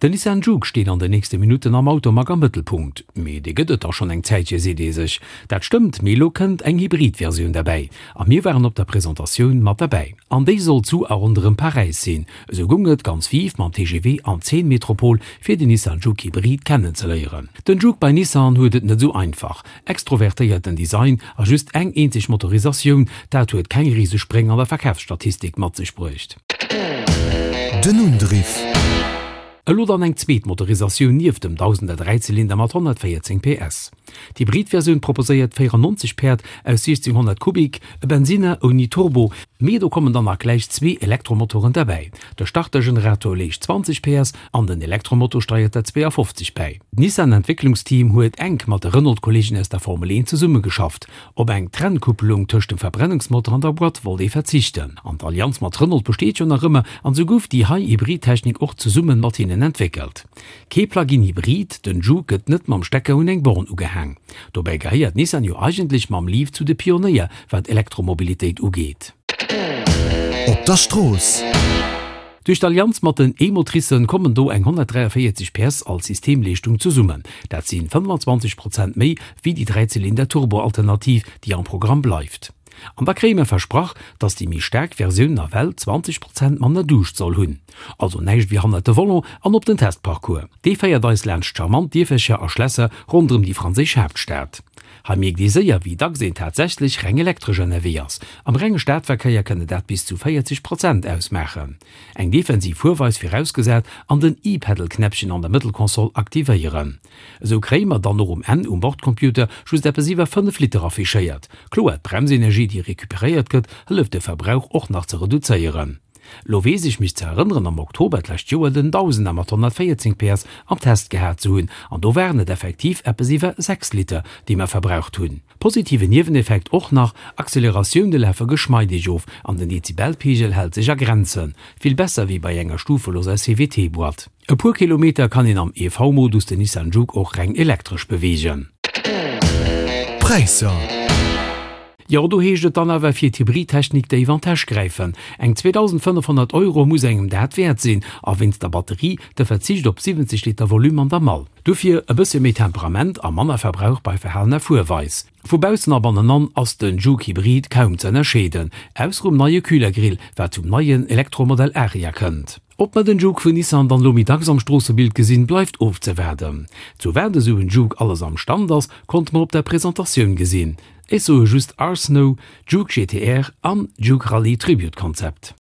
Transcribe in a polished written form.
Den Nissan Juke steet an den nächste Minutten am Automag am Mëttelpunkt. Mee dee gëtt et dach schonn eng Zäitche, seet ee sech. Dat stëmmt, mee elo kënnt eng Hybrid-Versioun derbäi. A mir waren op der Presentatioun mat derbäi. An déi soll zu a ronderëm Paräis sinn. Esou goung et ganz viv mam TGV an d'Seine-Metropol, fir den Nissan Juke Hybrid kennenzeléieren. Den Juke bei Nissan huet et net esou einfach. Extrovertéierten Design a just eng eenzeg Motorisatioun, dat huet keng Risespréng an der Verkafsstatistik mat sech bruecht. Den Undriff. Elo dann eng zweet Motorisatioun nieft dem Dausender Dräizylinder mat 114 PS. D'Hybrid-Versioun proposéiert 94 Päerd aus 1600 Kubik, e Bensinner ouni Turbo, mee do kommen dann nach gläich zwee Elektromotoren derbäi. De Startergenerator leescht 20 PS an den Elektromotor steiert der 52 bäi. D'Nissan-Entwécklungsteam huet enk mat de Renault-Kolleegen aus der Formel 1 zesummegeschafft. Op eng Trennkupplung tëscht dem Verbrennungsmotor an der Boîte wollt ee verzichten. An d'Allianz mat Renault besteet jo nach ëmmer, an esou gouf déi hei Hybridtechnik och zesumme mat hinnen entwéckelt. Kee Plug-in Hybrid, den Juke gëtt net mam Stecker un eng Born ugehaang. Dobäi gehéiert Nissan jo eigentlech mam Leaf zu de Pionéier wat Elektromobilitéit ugeet. Op der Strooss. Duerch d'Allianz mat den E-Motricen kommen do eng 143 PS als Systemleeschtung zesummen. Dat si 25 Prozent méi wéi déi Dräizylinder-Turbo-Alternativ, déi am Programm bleift. An da kréie mer versprach, dass déi méi staark Versioun nawell 20 Prozent manner Duuscht soll hunn. Also näischt wéi hannert de Volant an op den Testparcours. Dee féiert eis laanscht charmant Dierfercher a Schlässer ronderëm déi franséisch Haaptstad. Hei mierkt ee séier, wéi dacks een tatsächlech reng elektresch ënnerwee ass. Am renge Stadverkéier kënne dat bis zu 40 Prozent ausmaachen. Eng defensiv Fuerweis virausgesat an den E-Pedal-Knäppchen an der Mëttelkonsol aktivéieren. Esou kréie mer dann och um Enn um Bordcomputer just eppes iwwer 5 Liter affichéiert. Kloer, d'Bremsenergie, déi recuperéiert gëtt, hëlleft de Verbrauch och nach ze reduzéieren. Lo weess ech mech ze erënneren am Oktober d'lescht Joer den Dausender mat 114 PS am Test gehat ze hunn an do waren et effektiv eppes iwwer 6 Liter déi mer verbraucht hunn. Positiven Nieweneffekt och nach, Acceleratioune lafe geschmeideg of an den Dezibelpegel hält sech a Grenzen, vill besser wéi bei enger stufeloser CVT-Boîte. E puer Kilometer kann een am EV-Modus den Nissan Juke och reng elektresch beweegen. Präisser. Jo, do heescht et dann awer fir d'Hybridtechnik déif an d'Täsch gräifen. Eng 2.500 Euro muss engem dat wäert sinn, a wéinst der Batterie de Verzicht op 70 Liter Volume an der Mall. Dofir e bëssche méi Temperament a manner Verbrauch bei verhalener Fuerweis. Vu baussen a bannenan ass den Juke Hybrid kaum ze ënnerscheeden, ausser um neie Kühlergrill, wat zum neien Elektromodell Ariya kënnt. Ob mer den Juke vun Nissan dann elo méi dacks am Stroossebild gesinn, bleift ofzewaarden. Zu wat esou en Juke alles am Stand ass, konnte mer op der Presentatioun gesinn. Ech soe just Arsnow, Juke GTR an Juke Rallye Tribute Concept.